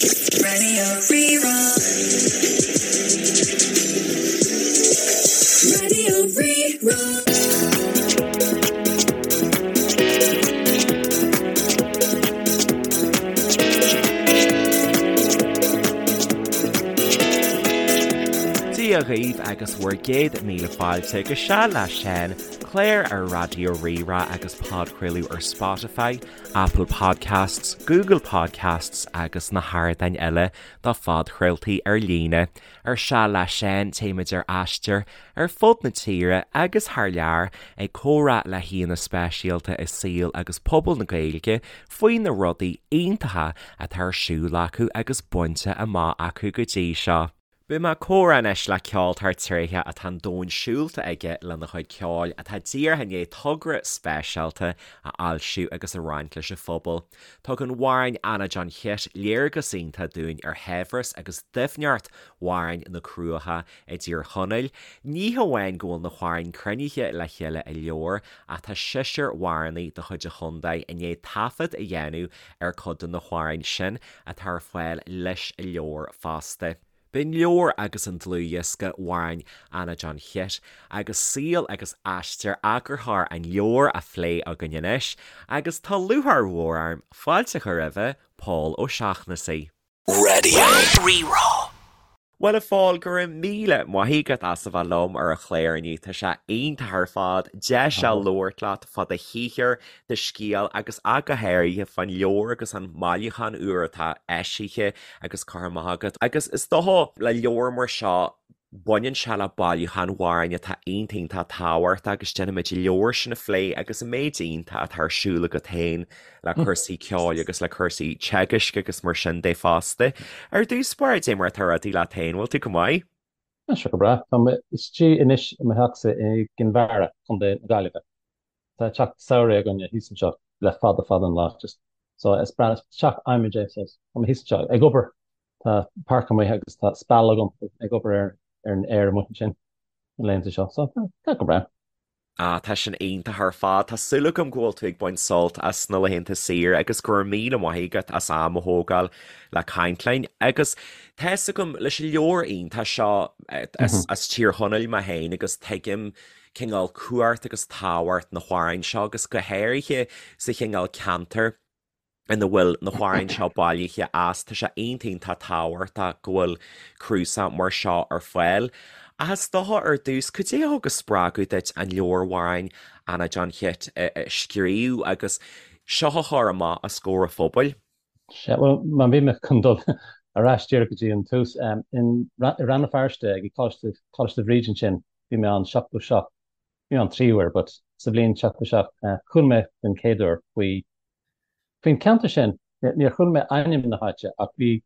Radio Rí-Rá. Radio Rí-Rá. Dia dhaoibh agus bhur gcéad míle fáilte go Seal le Seán, clár ar Raidió Rí-Rá agus podchraoladh ar Spotify, Apple Podcasts, Google Podcasts agus na hardáin eile do phodchraoltaí ar líne. Ar Seal le Seán téimid ar aistear ar fud na tíre agus thar lear ag comhrá le haíonna speisialta i saol agus pobal na Gaeilge faoi na rudaí iontacha atá ar siúl acu agus bainte amach acu go dtí seo. Beidh mé ag comhrá anois le ceoltóir tréitheach atá an domhan siúlta aige lena chuid ceoil, atá díreach i ndiaidh togra speisialta a fhoilsiú agus a roinnt leis an phobal. Tugann amhráin Anna John Chit léargas iontach dúinn ar shaibhreas agus doimhneacht amhráin na Cruacha i dTír Chonaill. Ní hamháin go bhfuil na hamhráin cruinnithe le chéile i leabhar ach tá seisear amhránaí de chuid an chontae i ndiaidh taifead a dhéanamh ar cuid de na hamhráin sin atá ar fáil leis an leabhar fosta. Beidh an leabhar agus an dlúthdhiosca Amhráin Anna John Chit agus saol agus aistear eagarthóir an leabhair á phlé againn anois agus tá lúcháir mhór orm fáilte a chur roimhe, Pól Ó Seachnasaigh. Radio Rí-Rá. Bhuel a Phóil, go raibh míle maith agat as a bheith liom ar an chlár inniu, tá sé iontach ar fad deis a labhairt leat fá do shaothar, do scéal agus ach go háirithe fán leabhar agus an mbailiúchán úr atá eisithe agus curtha amach agat. Agus is dócha le leabhar mar seo, baineann sé le bailiúchán amhrán atá iontach iontach tábhachtach agus déanfaimid an leabhar sin a phlé agus an méid iontach atá ar siúl agat féin le cúrsaí ceoil agus le cúrsaí teagaisc agus mar sin de fosta. Ar dtús báire, cad é mar atá rudaí leat féin, bhfuil tú go maith? Tá sé go breá. Tá mé istigh anois i mo theachsa i gCinn Mhara, Contae na Gaillimhe. Tá teach samhraidh againne thíos anseo le fada fada an lá just so is breá is teach adhmaid é so tá mé thíos anseo ag obair tá páirc amuigh agus tá speal agam ag obair ar ar an fhéar amuigh ansin na laethanta seo so tá go breá. Ah, tá sin iontach ar fad. Tá súil agam go bhfuil tú ag baint sult as na laethanta saoire agus go raibh míle maith agat as am a thógáil le caint linn. Agus tá fhios agam leis an leabhar iontach seo as Tír Chonaill mé féin agus tuigim cineál cumhacht agus tábhacht na hamhráin seo agus go háirithe sa chineál ceantar ina bhfuil na hamhráin seo bailithe as, tá sé iontach iontach tábhachtach go bhfuil cnuasach mar seo ar fáil. Ach is dócha ar dtús, cad é a thug an spreagadh duit an leabhar Amhráin Anna John Chit a scríobh agus seo a chur amach os comhair an phobail? Sea, bhuel, má bhí mé chun dul ar ais díreach go dtí an tús, i Rann na Feirste ag Coláiste, Coláiste Bhríde ansin, bhí mé ann 77, bhí mé ann trí huair, but sa bhliain 77, chuala mé den chéad uair faoi, faoin cheantar sin, níor chuala mé ainm na háite ach bhí,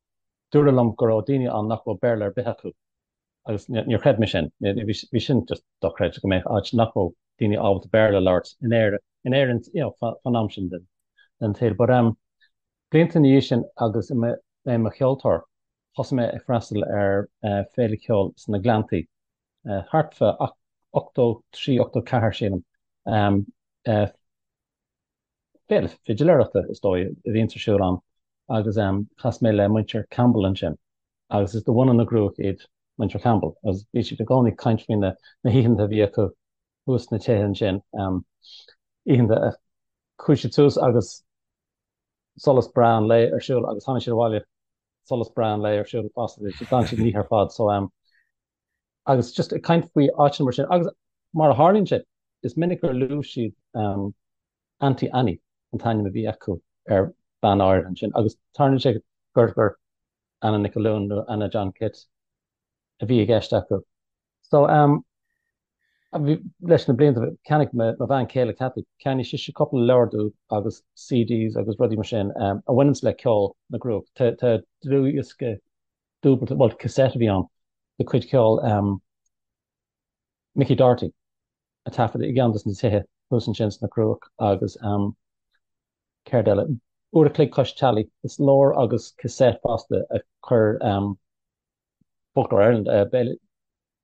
dúradh liom go raibh daoine ann nach raibh Béarla ar bith acu agus níor chreid mé sin, bhí sin just dochreidte go mbeadh áit nach raibh daoine ábalta Béarla a labhairt in Éirinn, in Éirinn, you know, fán am sin den, den tsaol. But um, blianta ina dhiaidh sin agus mé i mo cheoltóir, thosaigh mé ag freastal ar féile ceoil sna Gleanntaí, thart fá 83, 84 sílim. Féile fidiléireachta is dóigh a bhíonns ar siúl ann agus chas mé le muintir Campbell ansin agus is de bhunadh na gCruach iad muintir Campbell agus bhí siad i gcónaí ag caint faoi na hoícheanta a bhí acu thuas sna tithe ansin, oícheanta a chuaigh siad suas agus solas breá an lae ar siúl agus tháinig siad abhaile solas breá an lae ar siúl fosta, d'fhan siad an oíche ar fad so agus just ag caint faoi áiteanna mar sin agus mar a tharlaíonn sé is minic gur luaigh siad um, Auntie Annie an t-ainm a bhí acu ar bhean áirithe ansin agus tarlaíonn sé gur gur Anna Nic Fhionnghaile nó Anna John Chit a bhí i gceist acu. So um, bhí, leis na blianta cheannaigh mo, mo bhean chéile Cathy, cheannaigh sise cúpla leabhar domh agus CDs agus rudaí mar sin um, a bhaineanns le ceol na gCruach. Tá, tá dlúthdhiosca dúbailte, bhuel cassette a bhí ann, de chuid ceoil Mickey Doherty a taifeadadh i gceann de na tithe thuas ansin sna Cruach agus céard eile, Uair a chloig Cois Teallaigh, is leabhar agus cassette fosta a chuir Folklore Ireland,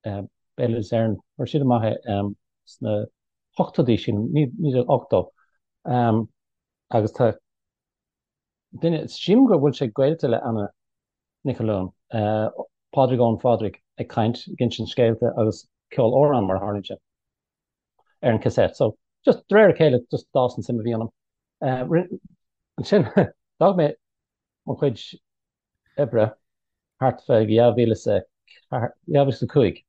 Béaloideas Éireann, chuir siad amach é sna hochtóidí, sílim, 1980 agus tá duine, sílim go bhfuil sé gaolta le Anna. Nic Cholúin, Pádraig Eoin Phádraig ag caint, ag insint scéalta agus ceol amhrán mar a tharlaíonn sé ar an cassette. So just de réir a chéile just d'fhás an suim a bhí ionam. Ansin d'fhág mé mo chuid oibre thart fá 2004, 2005.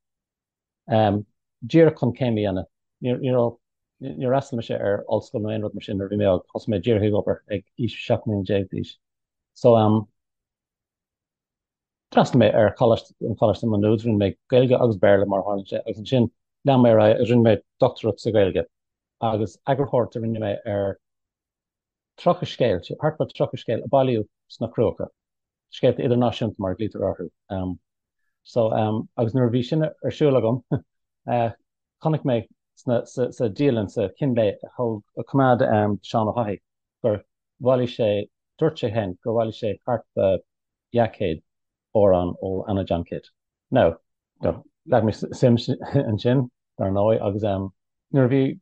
Díreach chun céim a dhéanamh. Ní raibh, níor fhreastail mise ar ollscoil nó aon rud mar sin nuair a bhí mé óg. Thosaigh mé díreach ag obair ag aois 17 mbliana d'aois. So, d'fhreastail mé ar choláiste, an Choláiste Maigh Nuad, rinne mé Gaeilge agus Béarla mar a tharlaíonn sé agus ansin lean mé ar aghaidh agus rinne mé dochtúireacht sa Ghaeilge agus eagarthóireacht a rinne mé ar 30 scéal, thart fá 30 scéal a bailíodh sna Cruacha. Scéalta idirnáisiúnta mar a ghlaoitear orthu. So, agus nuair a bhí sin ar siúl agam, chonaic mé sna, sa, sa dialann, sa chín lae a thóg, a choimeád Seán Ó hFathaigh gur bhailigh sé, dúirt sé féin gur bhailigh sé thart fá 200 amhrán ó Anna John Kitt. Now, leag mé suim ansin, dar ndóigh, agus nuair a bhí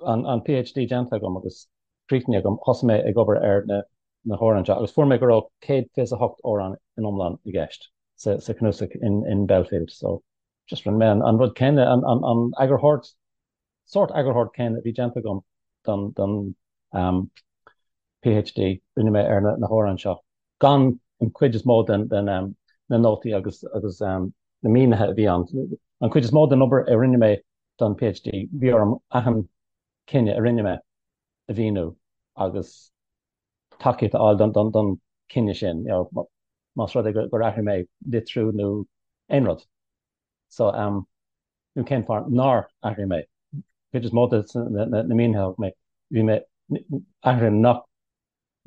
an PhD déanta agam agus críochnaithe agam, thosaigh mé ag obair ar na na hamhráin seo agus fuair mé go raibh 128 amhrán in iomlán i gceist sa chnuasach in Belfield. So, just rinne mé an rud céanna, an eagarthóireacht, sórt eagarthóireacht céanna a bhí déanta agam don PhD, rinne mé ar na hamhráin seo, gan an chuid is mó den na nótaí agus na mínithe a bhí ann. An chuid is mó den obair a rinne mé don PhD, bhí orm achan cinneadh a rinne mé a mhíniú agus tacaíocht a fháil don chinneadh sin, más rud é gur athraigh mé litriú nó aon rud. So, nó cén fáth nár athraigh mé. Cuid is mó de na mínithe a thug mé, bhí mé athruithe nach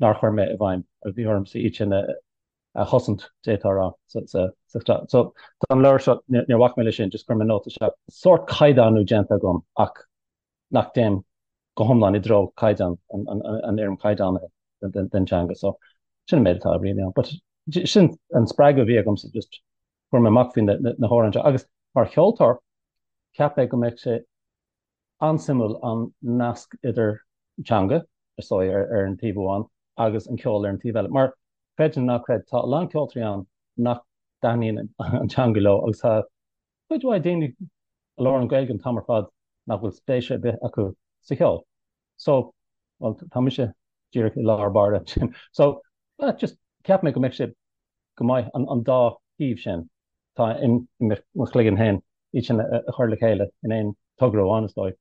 nár chuir mé i bhfeidhm agus bhí ormsa iad sin a chosaint, d'fhéadfá a rá, sa So, don leabhar seo, níor bhac mé leis sin, just chuir mé nóta isteach. Sórt caighdeánú déanta agam ach nach dtéim go hiomlán i dtreo caighdeán, an fhoirm chaighdeánaithe den teanga. So, sin an méid atá really ann. But sin an spreagadh a bhí agamsa, just fuair mé amach faoi na hamhráin seo. Agus mar cheoltóir, cheap mé go mbeadh sé an-suimiúil an nasc idir teanga, is dóigh, ar an taobh amháin agus an ceol ar an taobh eile. Mar, creid nó ná creid, tá a lán ceoltóirí ann nach dtaitníonn an teanga leo agus tá cuid mhaith daoine a labhrann Gaeilge an t-am ar fad nach bhfuil spéis ar bith acu sa cheol. So, bhuel, tá mise díreach i lár báire ansin. So, just cheap mé go mbeadh sé go maith an dá thaobh sin atá i mo chloigeann féin, iad sin a chur le chéile in aon togra amháin, is dóigh.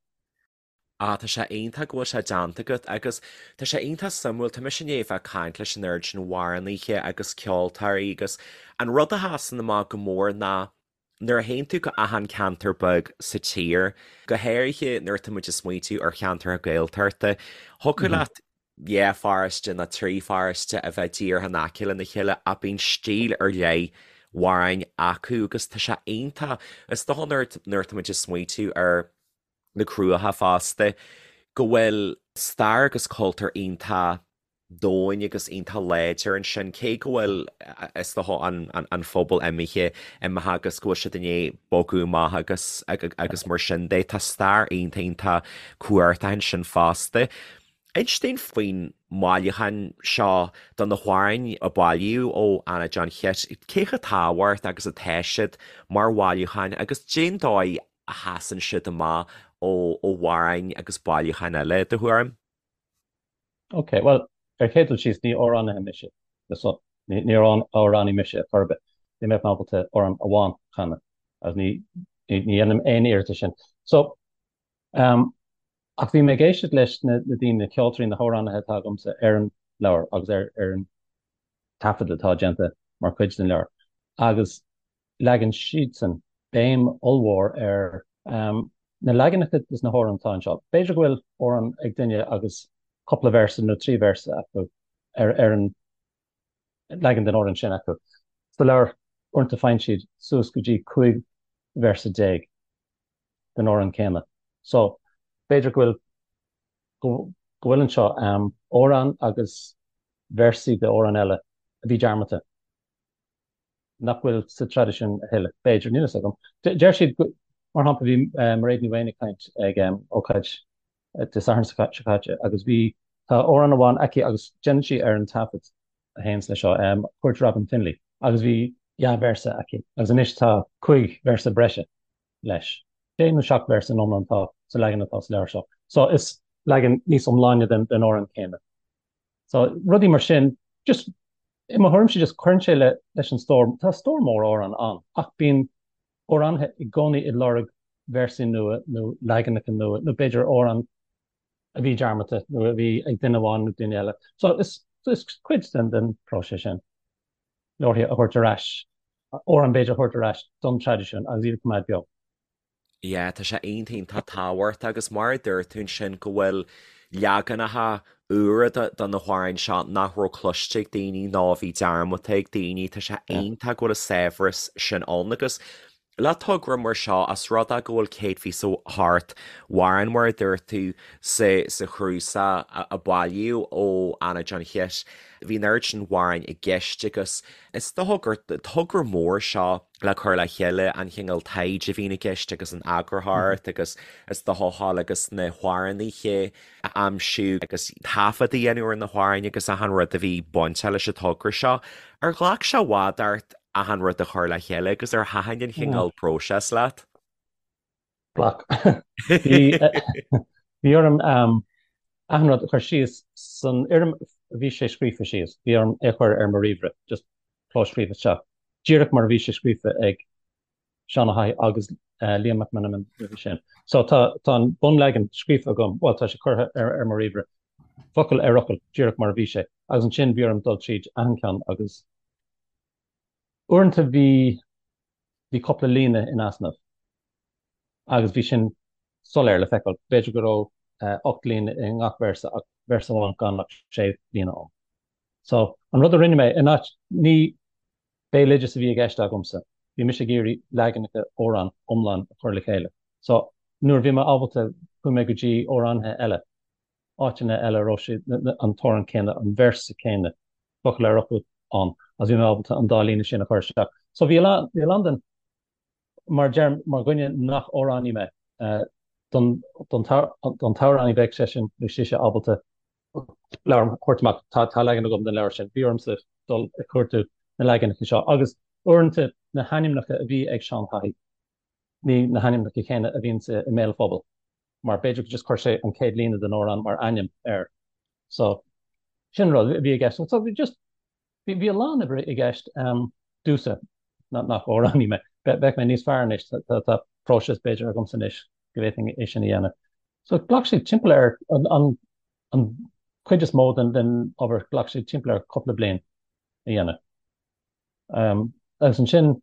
Ah, tá sé iontach go bhfuil sé déanta agat agus tá sé iontach suimiúil, tá mise i ndiaidh a bheith ag caint leis an oiread sin amhránaithe agus ceoltóirí agus an rud a sheasann amach go mór ná nuair a théann tú go achan ceantar beag sa tír, go háirithe nuair atá muid ag smaointiú ar cheantracha Gaeltachta, thiocfadh leat dhá pharóiste nó trí pharóiste a bheith díreach in aice lena chéile ach bíonn stíl ar leith amhráin acu agus tá sé iontach, is dócha nuair nuair atá muid ag smaointiú ar na Cruacha fosta, go bhfuil stair agus cultúr iontach domhain agus iontach láidir ansin, cé go bhfuil, is dócha, an phobal imithe, imithe agus go bhfuil siad i ndiaidh bogadh amach agus agus mar sin de. Tá stair iontach iontach cumhachtach ansin fosta. Inis dúinn faoin mbailiúchán seo de na hamhráin a bailíodh ó Anna John Chit. Cé chomh tábhachtach agus atá siad mar bhailiúcháin agus cén dóigh a sheasann siad amach ó amhráin agus bailiúcháin eile, i do thuairim? Ok, bhuel, ar chéad dul síos, ní amhránaí mise. So, ní amhránaí mise ar chor ar bith. Ní mbeadh mé ábalta amhrán amháin a chanadh agus ní dhéanaim aon iarracht sin. So, um, ach bhí mé ag éisteacht leis na daoine, na ceoltóirí, na hamhránaithe atá agamsa ar an leabhar agus ar ar an taifead atá déanta mar chuid den leabhar. Agus leagann siadsan béim ollmhór ar na leaganacha des na hamhráin atá anseo. B'fhéidir go bhfuil amhrán ag duine agus cúpla véarsa nó trí véarsa acu ar ar an leagan den amhrán sin acu. Sa leabhar, uaireanta faigheann siad suas go dtí 15 véarsa den amhrán céanna. So, b'fhéidir go bhfuil go bhfuil anseo amhrán agus véarsaí de amhrán eile a bhí dearmadta. nach bhfuil sa traidisiún a thuilleadh, b'fhéidir, níl a fhios agam. Deir siad, mar shampla, bhí Mairéad Ní Mhaonaigh ag caint ag ócáid Dé Sathairn seo caite agus bhí, tá amhrán amháin aici agus déanann sí ar an taifead a théanns leis seo, Cuairt Robin Finlay. Agus bhí dhá véarsa aici agus anois tá 5 véarsa breise leis. Sé nó seacht véarsa in iomlán atá sa leagan atá sa leabhar seo. So is leagan níos iomláine den den amhrán céanna. So rudaí mar sin, just i mo thuairimse just cuireann sé le leis an stór. Tá stór mór amhrán ann ach bíonn amhránaithe i gcónaí ag lorg véarsaí nua nó leaganacha nua nó b'fhéidir amhrán a bhí dearmadta nó a bhí ag duine amháin nó duine eile. So is is cuid den den próiseas sin leabharthaí a thabhairt ar ais, amhráin b'fhéidir a thabhairt ar ais don traidisiún agus iad a choimeád beo. Yeah, tá sé iontach iontach tábhachtach agus mar a dúirt tú ansin go bhfuil leaganacha úra de na hamhráin seo nach raibh cloiste ag daoine nó a bhí dearmadta ag daoine, tá sé iontach go bhfuil an saibhreas sin ann agus le togra mar seo, as rud é go bhfuil 128 amhrán mar a dúirt tú sa sa chnuasach a bailíodh ó Anna John Chit, bhí an oiread sin amhráin i gceist agus is dócha gur togra mór seo le cur le chéile, an chineál taighde a bhíonn i gceist agus an eagarthóireacht agus is dócha a ghabháil agus na hamhránaithe a aimsiú agus taifead a dhéanamh ar na hamhráin agus achan rud a bhí bainteach leis an togra seo. Ar ghlac sé i bhfad ort achan rud a chur le chéile agus ar thaitin an chineál próiseas leat? Ghlac. Bhí orm achan rud a chur síos san fhoirm a bhí sé scríofa síos. Bhí orm é a chur ar mo ríomhaire, just clóscríobh isteach, díreach mar a bhí sé scríofa ag Seán Ó hAdhaigh agus Liam Mac Meanman roimhe sin. So tá tá an bunleagan scríofa agam, bhuel tá sé curtha ar ar mo ríomhaire, focal ar fhocal, díreach mar a bhí sé. Agus ansin bhí orm dul tríd achan ceann agus uaireanta bhí bhí cúpla líne in easnamh agus bhí sin soiléir le feiceáil. B'fhéidir go raibh 8 líne i ngach véarsa ach véarsa amháin gan ach 6 líne ann. So an rud a rinne mé, in áit, ní béaloideas a bhí i gceist agamsa, bhí mise ag iarraidh leaganacha amhrán iomlán a chur le chéile. So nuair a bhí mé ábalta chuaigh mé go dtí amhránaithe eile, áiteanna eile a raibh sé, an t-amhrán céanna, an véarsa céanna, focal ar fhocal ann agus bhí mé ábalta an dá líne sin a chur isteach. So bhí a lán, bhí a lán den, mar deirim, mar dhuine nach amhránaí mé, don, don t-amhránaí bheadh seisean nó sise ábalta leabhar a thabhairt amach, tá, tá leagan agam den leabhar sin, bhí ormsa dul ag cuartú na leaganacha seo agus uaireanta na hainmneacha a bhí ag Seán Haughey, ní na hainmneacha céanna a bhíonn i mbéal an phobail. mar b'fhéidir go just chuir sé an chéad líne den amhrán mar ainm air. So, sin rud a bhí i gceist. So, bhí just, bhí, bhí a lán oibre i gceist um, domhsa, nach amhránaí mé. Bheadh mé níos fearr anois, tá, tá próiseas b'fhéidir agamsa anois go bhféadfainn é sin a dhéanamh. So, ghlac sé timpeall ar an, an, an chuid is mó den, den obair, ghlac sé timpeall ar cúpla bliain a dhéanamh. Um, agus ansin,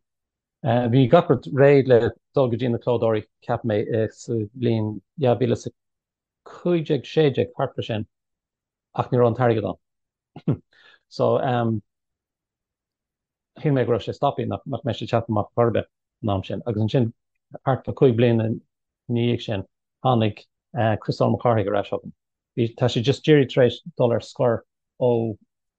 Bhí gach rud réidh le dul go dtí na clódóirí, cheap mé, sa bhliain 2015, 16, thart fá sin, ach ní raibh an t-airgead ann. So, shíl mé go raibh sé stoptha, nach mbeadh sé teacht amach chor ar bith an am sin. Agus ansin, thart fá 5 bliana ina dhiaidh sin, tháinig Críostóir Mac Cárthaigh ar ais chugam. Bhí, tá sé just díreach tar éis dul ar scor ó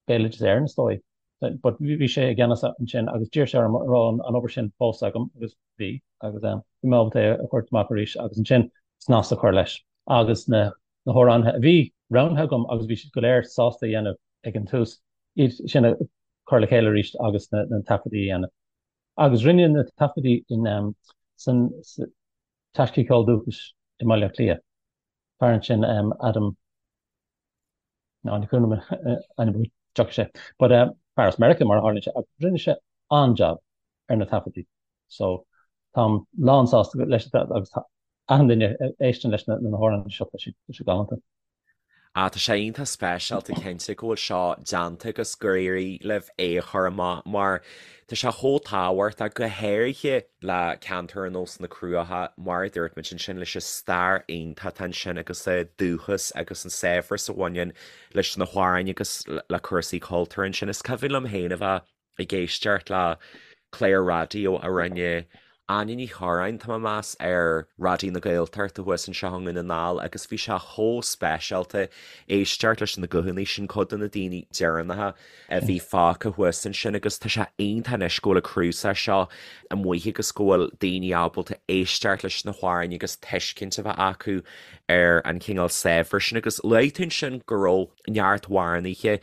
Béaloideas Éireann, is dóigh. But bhí sé i gceannas ansin agus d'iarr sé orm an raibh an obair sin fós agam agus bhí agus bhí mé ábalta é a thabhairt amach arís agus ansin snas a chur leis agus na na hamhránaithe a bhí roghnaithe agam agus bhí siad go léir sásta a dhéanamh ag an tús, iad sin a chur le chéile arís agus na na taifeadtaí a dhéanamh. Agus rinneadh na taifeadtaí in san Taisce Ceoil Dúchais i mBaile Átha Cliath. Fear ansin Adam Ná ní cuimhin liom a ainm tiocfaidh sé. But fear as Meiriceá mar a tharlaíonn sé ach rinne sé an-jab ar na taifeadtaí. So táim lán sásta leis agus tá achan duine a éisteann leis na hamhráin seo tá sé tá sé galánta. Ah tá sé iontach speisialta cinnte go bhfuil seo déanta agus gur éirigh libh é a chur amach mar tá sé chomh tábhachtach go háirithe le ceantar ar nós na Cruaiche, mar a dúirt muid ansin, leis an stair iontach atá ansin agus an dúchas agus an saibhreas a bhaineann leis na hamhráin agus le cúrsaí cultúir ansin. Is cuimhin liom féin a bheith ag éisteacht le clár raidió a rinne Áine Ní Churráin, tá mé ag meas, ar Raidió na Gaeltachta thuas anseo i nDún na nGall agus bhí sé chomh speisialta éisteacht leis na guthanna sin, cuid de na daoine deireanacha a bhí fágtha thuas ansin agus tá sé iontach anois go bhfuil an cnuasach seo amuigh agus go bhfuil daoine ábalta éisteacht leis na hamhráin agus tuiscint a bheith acu. ar an chineál saibhreas sin agus luaigh tú ansin go raibh neart amhránaithe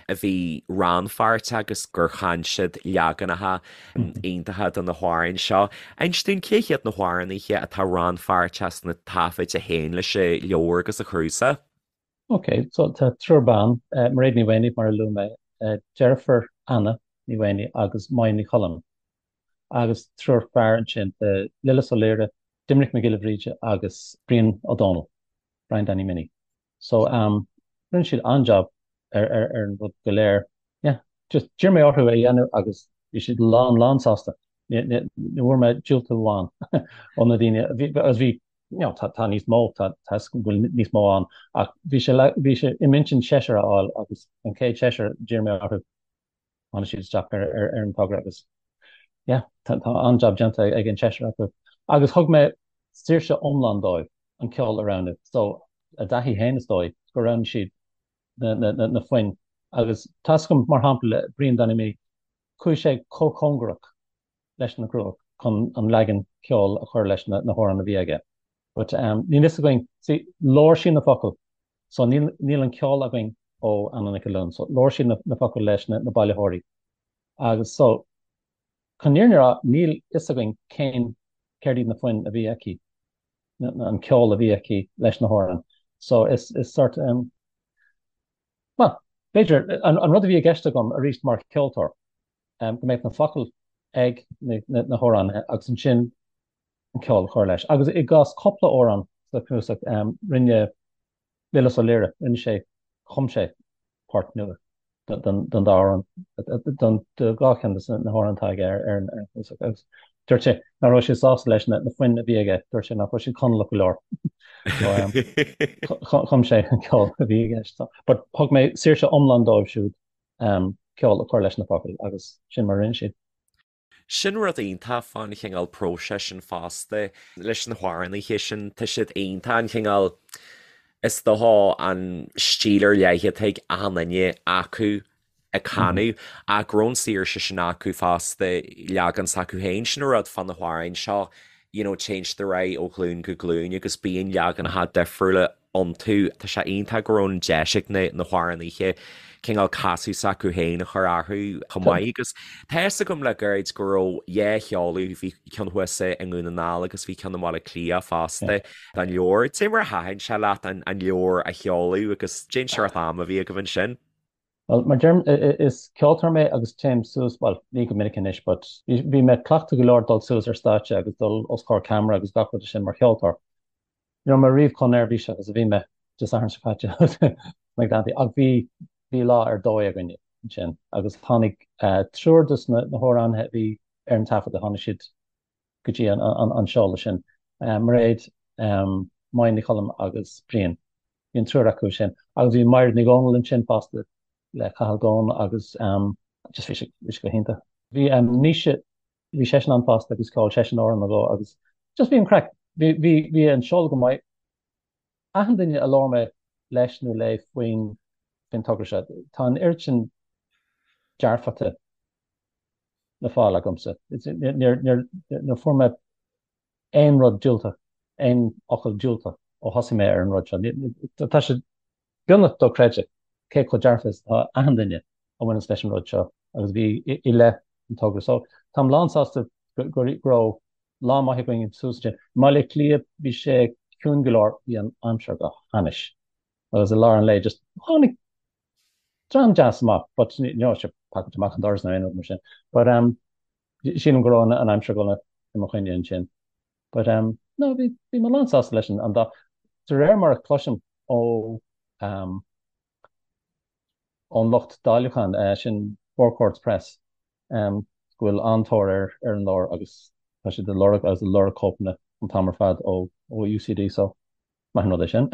a bhí rannpháirteach agus gur chan siad leaganacha iontacha de na hamhráin seo. Inis dúinn cé hiad na hamhránaithe atá rannpháirteach sna taifid a théann leis an leabhar agus an cnuasach? Ok, so tá triúr ban, Mairéad Ní Mhaonaigh mar a luaigh mé, deirfiúr Anna Ní Mhaonaigh agus Máire Ní Choilm. Agus triúr fear ansin, Lillis Ó Laoire, Doimnic Mac Giolla Bhríde agus Brian Ó Dónaill, Brian Danny Minnie. So um rinne siad an-jab ar ar ar an rud go léir. Yeah, just d'iarr mé orthu é a dhéanamh agus bhí siad lán lán sásta. Ní ní ní bhfuair mé diúltú amháin ó na daoine bhí agus bhí you know tá tá níos mó tá tá 'fhios agam go bhfuil níos mó ann ach bhí sé le bhí sé i m'intinn seisear a fháil agus an chéad seisear d'iarr mé orthu tháinig siad isteach ar ar ar an togra agus yeah tá tá an-jab déanta ag an seisear acu. Agus thug mé saoirse iomlán dóibh an ceol a roghnú. So a dtaithí féin is dóigh gur roghnaigh siad na na na na foinn agus tá 'fhios agam mar shampla le Brian Danny Minnie chuaigh sé chomh cóngarach leis na Cruach chun an leagan ceoil a chur leis na na hamhráin a bhí aige. But um níl fhios againn see labhair sí na focail so níl níl an ceol againn ó Anna Nic Uilliúin so labhair sí na na focail leis na na bailitheoirí agus so chun an fhírinne a rá níl fhios againn cén céard iad na foinn a bhí aici na an ceol a bhí aici leis na hamhráin so is is sort um well b'fhéidir an an rud a bhí i gceist agam arís mar cheoltóir um go mbeadh na focail ag na na na hamhránaithe agus ansin an ceol a chur leis. Agus i gcás cúpla amhrán sa chnuasach, rinne Lillis Ó Laoire, rinne sé, chum sé port nua don dá amhrán, don dhá cheann de na hamhráin atá aige ar an chnuasach. Agus dúirt sé nach raibh sé sásta leis na foinn a bhí aige, dúirt sé nach raibh siad Conallach go leor. So chum sé an ceol a bhí i gceist. But thug mé saoirse iomlán dóibh siúd ceol a chur leis na focail agus sin mar a rinne siad. Sin rud iontach fán chineál próiseas sin fosta leis na hamhránaithe sin, tá siad iontach an chineál, is dócha an stíl ar leith atá ag achan duine acu ag canadh ach go raibh an saoirse sin acu fosta leagan s'acu féin, sin an rud fá na hamhráin seo, you know téann siad ar aghaidh ó ghlúin go glúin agus bíonn leaganacha difriúla iontu. Tá sé iontach go raibh an deis ag na hamhránaithe cineál casadh s'acu féin a chur orthu chomh maith agus tá fhios agam le gairid go raibh dhá sheoladh, bhí ceann thuas i nDún na nGall agus bhí ceann i mBaile Átha Cliath fosta den leabhar. Cad é mar a thaitin sé leat an leabhar a sheoladh agus cén seort ama a bhí agaibh ansin? Bhuel, mar deirim, is ceoltóir mé agus téim suas, bhuel, ní go minic anois, but bhí mé cleachta go leor dul suas ar stáitse agus dul os comhair ceamara agus gach rud sin mar cheoltóir. Ní raibh mé riamh chomh neirbhíseach is a bhí mé Dé Sathairn seo caite sna Gleanntaí ach bhí bhí lá ar dóigh againne ansin agus tháinig triúr de na hamhránaithe a bhí ar an taifeadadh, tháinig siad go dtí an seoladh sin, Mairéad, Máire Ní Choilm agus Brian. Bhí an triúr acu sin agus bhí Maighread Ní Dhomhnaill ansin fosta le Cathal Goan agus just bhí sé bhí sé go hiontach. Bhí Naoise Bhí seisean ann fosta agus cheol seisean amhrán nó dhó agus just bhí an craic, bhí, bhí, bhí an seoladh go maith. Achan duine a labhair mé leis nó léi faoin, faoin togra seo, tá an oiread sin dearfachta le fáil agamsa. Níor, níor, níor fuair mé aon rud diúltach, aon fhocal diúltach ó thosaigh mé ar an rud seo. Tá sé beagnach dochreidte cé chomh dearfa is atá achan duine a bhaineanns leis an rud seo agus a bhí i leith an togra. So táim lán-sásta go raibh lá maith againn suas ansin. I mBaile Átha Cliath bhí sé ciúin go leor, bhí an aimsir go hainnis agus i lár an lae just tháinig dream deas amach but ní raibh sé pacáilte amach an doras nó aon rud mar sin. But um, sílim go raibh an aimsir ag dul i mo choinne ansin. But um, no, bhí bhí mé lán-sásta leis an dá. De réir mar a chloisim ó um, ón lucht dáiliúcháin, eh, sin Four Courts Press, um, go bhfuil an-tóir ar ar an leabhar agus tá siad ag lorg agus ag lorg cóipeanna an t-am ar fad ó ó UCD so Maith an rud é sin.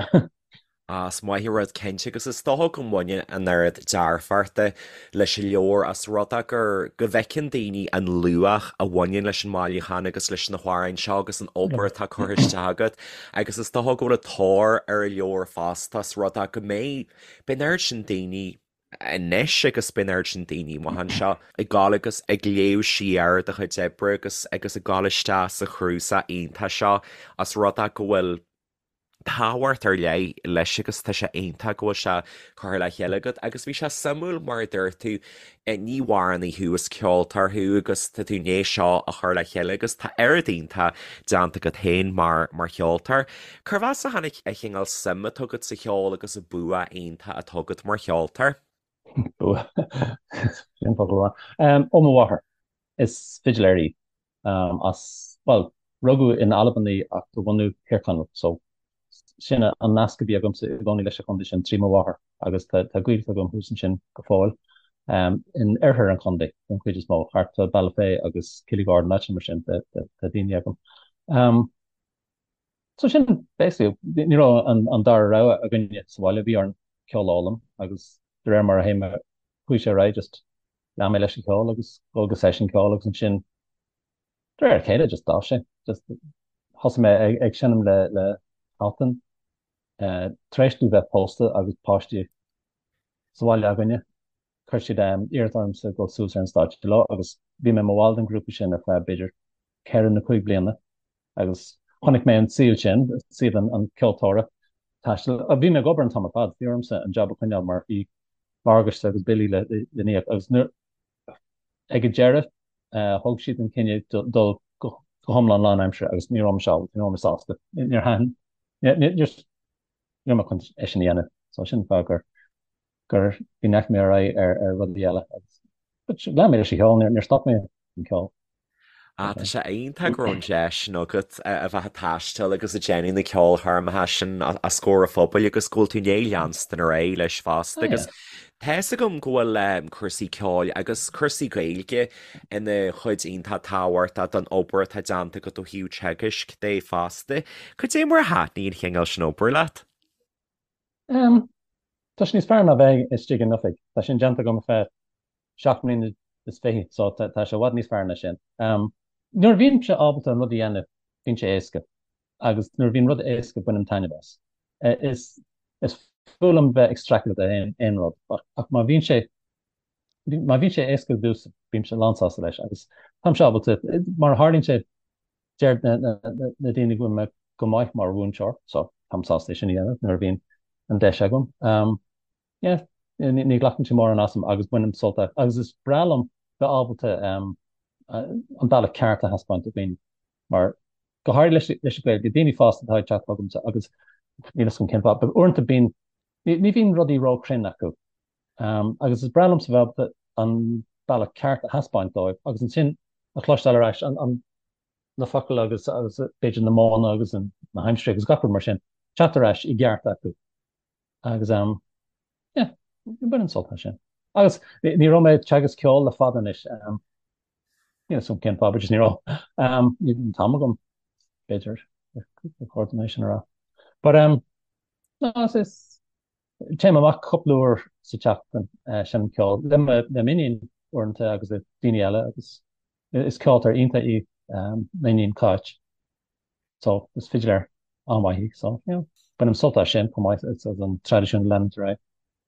Á, is maith an rud cinnte agus is dócha go mbaineann an oiread dearfachta leis an leabhar as rud é gur, go bhfeiceann daoine an luach a bhaineann leis an mbailiúchán agus leis na hamhráin seo agus an obair atá curtha isteach agat agus is dócha go bhfuil an tóir ar an leabhar fosta as rud é go mbeidh, beidh an oiread sin daoine anois agus beidh an oiread sin daoine amach anseo ag gabháil agus ag léamh siar do chuid oibre agus agus ag gabháil isteach sa chnuasach iontach seo as rud é go bhfuil. Tábhacht ar leith leis agus tá sé iontach go bhfuil sé curtha le chéile agat agus bhí sé suimiúil mar a dúirt tú, ní hamhránaí thú, is ceoltóir thú agus tá tú i ndiaidh seo a chur le chéile agus tá oiread iontach déanta agat féin mar mar cheoltóir. Cérbh as a tháinig an chineál suim atá agat sa cheol agus an bua iontach atá agat mar cheoltóir? Bua. Sin focal maith. Ó mo mháthair. Is fidiléir í. As, bhuel, rugadh in Albain í ach de bhunadh Thír Chonaill, so sin an nasc a bhí agamsa i gcónaí leis an chontae sin trí mo mháthair agus tá gaolta agam thuas ansin go fóill, in oirthear an chontae den chuid is mó, thart fá Bealach Féich agus Killygordon, áiteanna mar sin, tá daoine agam. So sin basically, ní raibh an dara rogha againne sa bhaile, bhí orainn ceol a fhoghlaim agus de réir mar a théim, chuaigh sé ar aghaidh just lean mé leis an cheol agus dul go seisiún ceoil agus ansin de réir a chéile just d'fhás sé. Just thosaigh mé ag, ag seinm le, le hAltan tar éis domh bheith pósta agus páistí sa bhaile againne. Chuir siad iarraidh ormsa dul suas ar an stáitse leo agus bhí mé i mo bhall den ghrúpa sin ar feadh b'fhéidir 4 nó 5 bliana agus chonaic mé an saol sin, saol an, an ceoltóra taistil. Bhí mé ag obair an t-am ar fad, bhí ormsa an job a choinneáil mar bhí morgáiste agus billí le n-íoc agus nuair ag an deireadh thóg siad an cinneadh dul go hiomlán lánaimseartha agus ní raibh mise ábalta, ní raibh mé sásta. Níor thaitin, ní raibh mé chun é sin a dhéanamh. So sin an fáth gur gur go ndeachaigh mé ar aghaidh ar ar rudaí eile agus but lean mé leis an cheol, níor stop mé an ceol. Ah, tá sé iontach go raibh an deis sin agat a bheith ag taisteal agus ag déanamh na ceolchoirmeacha sin os comhair an phobail agus go bhfuil tú i ndiaidh leanstan ar aghaidh leis fosta agus tá fhios agam go bhfuil cúrsaí ceoil agus cúrsaí Gaeilge ina chuid iontach tábhachtach don obair atá déanta agat ó thaobh teagaisc de fosta. Cad é mar a thaitníonn an chineál sin obair leat? Tá sé níos fearr ná bheith istigh in oifig. Tá sin déanta agam ar feadh 7 mbliana is fiche, so tá sé i bhfad níos fearr ná sin. Nuair a bhímse ábalta an rud a dhéanamh, bíonn sé éasca. Agus nuair a bhíonn rud éasca, bainim taitneamh as. Is is fuath liom bheith ag streachailt le aon rud, ach má bhíonn sé má bhíonn sé éasca domhsa, bímse lánsásta leis. Agus táimse ábalta, mar a tharlaíonn sé, Deir na daoine go bhfuil mé go maith mar mhúinteoir, so táim sásta é sin a dhéanamh nuair a bhíonn an deis agam. Yeah, ní ghlacann sé mórán asam agus bainim sult as. Agus is breá liom bheith ábalta an bealach ceart a thaispeáint do dhaoine, mar go háirithe leis leis an Ghaeilge, daoine fásta atá ag teacht chugamsa agus níl fhios agam cén fáth, but uaireanta bíonn, ní bhíonn rudaí róchruinn acu. Agus is breá liomsa bheith ábalta an bealach ceart a thaispeáint dóibh agus ansin a chloisteáil ar ais an na focail agus agus b'fhéidir na modhanna agus an na haimsirí agus gach rud mar sin teacht ar ais i gceart acu. Agus um yeah, bainim sult as sin. Agus ní raibh mé ag teagasc ceoil le fada anois. Um, níl fhios agam cén fáth, but just ní raibh. Um, ní an t-am agam b'fhéidir ar chóir dom é sin a rá. But um, no, is, is Téim amach cúpla uair sa tseachtain, seinnim ceol le m'iníon uaireanta agus le daoine eile agus is ceoltóir iontach í m'iníon Cáit so is fidiléir an-mhaith í so you know bainim sult as sin chomh maith as an traidisiún a leanúint ar aghaidh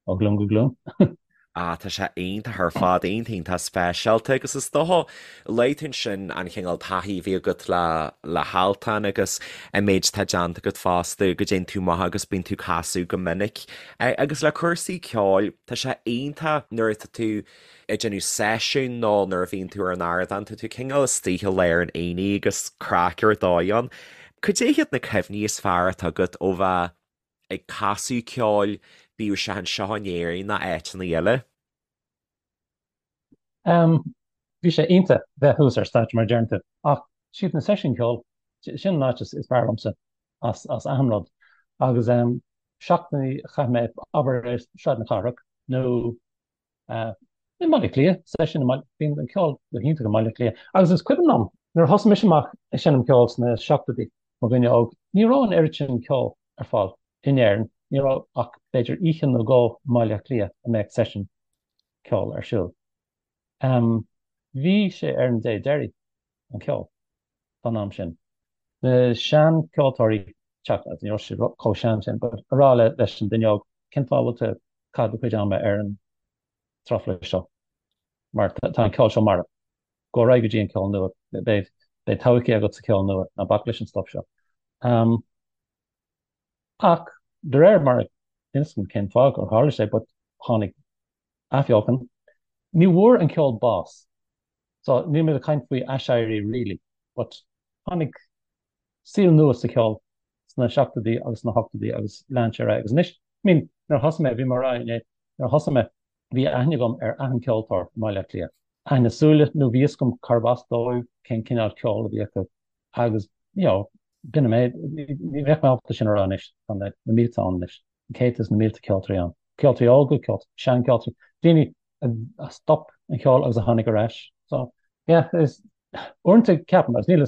ó ghlúin go glúin. Ah, tá sé iontach ar fad, iontach iontach speisialta agus is dócha, luaigh tú ansin an chineál taithí a bhí agat le le hAltan agus an méid atá déanta agat fosta, go dtéann tú amach agus bíonn tú ag casadh go minic. Agus le cúrsaí ceoil, tá sé iontach nuair atá tú ag déanamh seisiún nó nuair a bhíonn tú ar an ardán, tá tú cineál istigh i lár an aonaigh agus craic ar dóigh ann. Cad é hiad na cuimhní is fearr atá agat ó bheith ag casadh ceoil, bíodh sé anseo in Éirinn nó áiteanna eile. Bhí sé iontach bheith thuas ar stáitse mar a deireann tú, ach siad na seisiúin ceoil, sin an áit is fearr liomsa as as achan rud. Agus seachtainí a chaith mé, abair ar Sráid na Cathrach nó I mBaile Átha Cliath, seisiún i mBaile, bíonn an ceol go hiontach i mBaile Átha Cliath. Agus is cuimhin liom, nuair a thosaigh mise amach ag seinm ceoil sna seachtóidí, mo dhuine óg, ní raibh an oiread sin ceoil ar fáil in Éirinn, ní raibh ach b'fhéidir oíche nó dhó i mBaile Átha Cliath a mbeadh seisiún ceoil ar siúl. Bhí sé ar an dé deiridh, an ceol, fán am sin. Na seancheoltóirí, teacht, ní raibh siad chomh sean sin, but a rá leis an duine óg, cén fáth a bhfuil tú ag caitheamh do chuid ama ar an truflais seo, mar tá an ceol seo marbh. Gabh ar aghaidh go dtí an ceol nua, beidh todhchaí agat sa cheol nua, ná bac leis an stuff seo. Ach de réir mar a níl 'fhios agam cén fáth gur tharla sé but tháinig athbheochan. Ní bhfuair an ceol bás. So níl muid ag caint faoi aiséirí really but tháinig saol nua sa cheol sna seachtóidí agus sna hochtóidí agus lean sé ar aghaidh. Agus anois, I mean, nuair a thosaigh mé, bhí mé ag rá inné, nuair a thosaigh mé, bhí aithne agam ar achan ceoltóir i mBaile Átha Cliath. Aithne súile, nó bhí fhios agam cárb as dóibh, cén cineál ceoil a bhí acu agus, you know, b'in an méid. Ní bheadh mé ábalta sin a rá anois, tá na mílte ann anois, na céadta is na mílte ceoltóirí ann. Ceoltóirí óga, ceoltóirí, seancheoltóirí, daoine a stop an cheol agus a tháinig ar ais. So, yeah, is uaireanta ceapaim, agus níl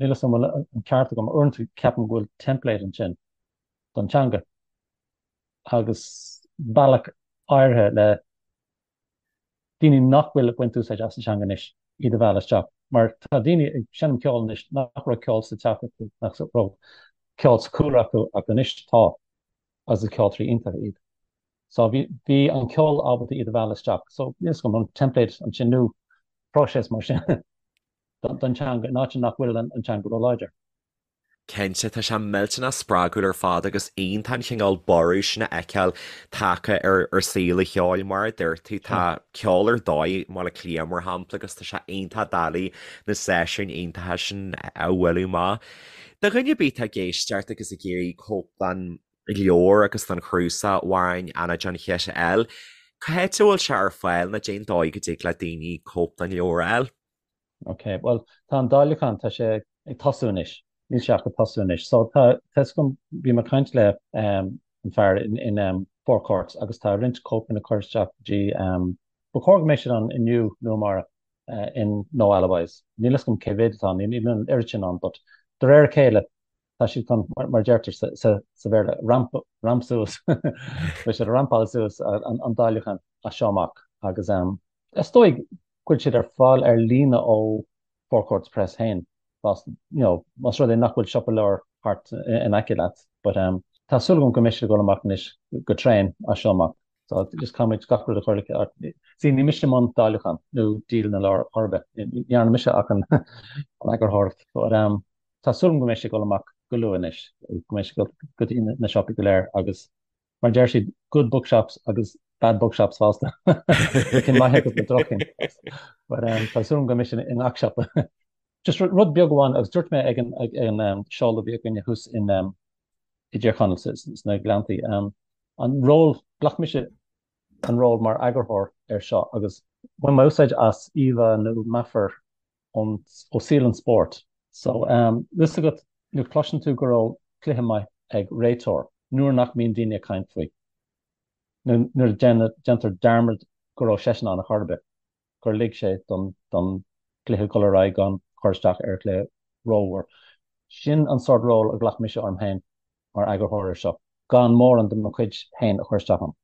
fhios an bhfuil an ceart agam, uaireanta ceapaim go bhfuil template ansin don teanga agus bealach áirithe le daoine nach bhfuil ag baint úsáid as an teanga anois iad a mhealladh isteach. Mar tá daoine ag seinm ceoil anois nach raibh ceol sa teach acu, nach raibh ceol sa chúlra acu ach anois tá agus is ceoltóirí iontacha iad. So bhí bhí an ceol ábalta iad a mhealladh isteach. So níl fhios agam an template ansin nó próiseas mar sin don teanga in áit nach bhfuil an teanga róláidir. Cinnte, tá sé millteanach spreagúil ar fad agus iontach an chineál borradh sin a fheiceáil tagtha ar ar saol an cheoil. Mar a dúirt tú, tá ceol ar dóigh i mBaile Átha Cliath, mar shampla, agus tá sé iontach doiligh na seisiúin iontacha sin a bhualadh amach. Do dhuine ar bith atá ag éisteacht agus ag iarraidh cóip den leabhar agus den chnuasach Amhráin Anna John Chit a fháil, cá háit a bhfuil sé ar fáil nó cén dóigh go dtig le daoine cóip den leabhar a fháil? Ok, bhuel tá an dáiliúchán, tá sé ag tosú anois, níl sé ach ag tosú anois. So tá, tá 'fhios agam, bhí mé ag caint le an fear in, in Four Courts agus tá roinnt cóipeanna curtha isteach go dtí, ba chóir go mbeidh siad ann inniu nó amárach in No Alibis. Níl 'fhios agam cé mhéad atá ann, níl an oiread sin ann but de réir a chéile tá siad chun, mar a deirtear sa Bhéarla, ramp, ramp suas, beidh siad ag rampáil suas an dáiliúchán as seo amach agus is dóigh go bhfuil siad ar fáil ar líne ó Four Courts Press féin, you know, más rud é nach bhfuil siopa leabhar thart in aice leat. But tá súil agam go mbeidh siad ag dul amach anois go tréan as seo amach. So just caithfimid gach rud a chur le See, ní mise i mbun dáiliúchán nó díol na leabhar chor ar bith. Ní dhearna mise ach an eagarthóireacht. But tá súil agam go mbeidh sé ag dul amach go luath anois, go mbeidh sé ag dul go dtí na siopaí go léir agus mar deir siad, good bookshops agus bad bookshops fosta. Na cinn maithe agus na droch-chinn. But um, tá súil agam go mbeidh sé i ngach siopa. Just rud beag amháin agus dúirt mé ag an, ag an um, seoladh a bhí againne thuas in um, i dTír Chonaill sna Gleanntaí. Um, an ról, ghlac mise an ról mar eagarthóir ar seo agus bhain mé úsáid as íomhá nó meafar ón, ó saol an spóirt. So, tá 'fhios agat, nuair a chloiseann tú go raibh cluiche maith ag réiteoir, nuair nach mbíonn daoine ag caint faoi, nó nuair a déantar dearmad go raibh seisean ann ar chor ar bith, gur lig sé don, don chluiche dul ar aghaidh gan cur isteach ar an chluiche rómhór. Sin an sórt ról a ghlac mise orm féin mar eagarthóir ar seo, gan mórán de mo chuid féin a chur isteach ann.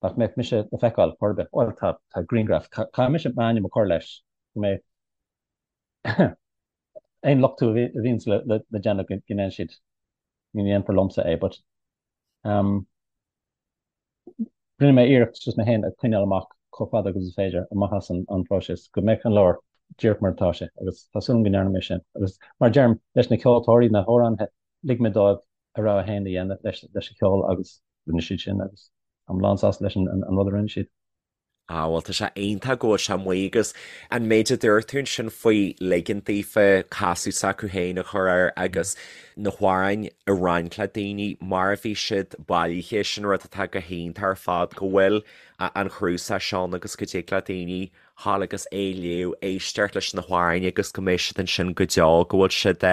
Nach mbeadh mise le feiceáil chor ar bith. Bhuel, tá, tá grianghraf. Caithfidh mise m'ainm a chur leis go mbeidh aon lochtú a bhíonns le déanamh go ndéanfaidh siad, ní dhéanfar liomsa é, but um, rinne mé iarracht just mé féin a choinneáil amach chomh fada agus is féidir amach as an, an próiseas go mbeadh an leabhar díreach mar atá sé agus tá súil agam go ndearna mé sin. Agus mar a deirim, leis na ceoltóirí, na hamhránaithe, lig mé dóibh a rogha féin a dhéanamh leis, leis an cheol agus rinne siad sin agus táim lán sásta leis an rud a rinne siad. Ah bhuel tá sé iontach go bhfuil sé amuigh agus an méid a dúirt tú ansin faoi ligean daofa casadh s'acu féin a chur air agus na hamhráin a roinnt le daoine mar a bhí siad bailithe sin rud atá go hiontach ar fad go bhfuil an cnuasach seo ann agus go dtig le daoine ghabháil agus é a léamh, éisteacht leis na hamhráin agus go mbeidh siad ansin go deo, go bhfuil siad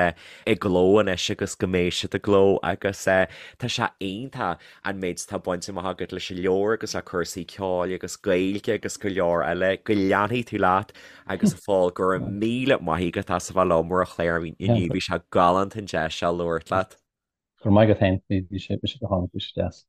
i gcló anois agus go mbeidh siad i gcló agus tá sé iontach an méid atá bainte amach agat leis an leabhar agus le cúrsaí ceoil agus Gaeilge agus go leor eile. Go leanfaidh tú leat agus a Phóil, go raibh míle maith agat as a bheith liom ar an chlár inniu, bhí sé galánta an deis seo labhairt leat. Go raibh maith agat féin, bhí sé go hálainn, bhí sé deas.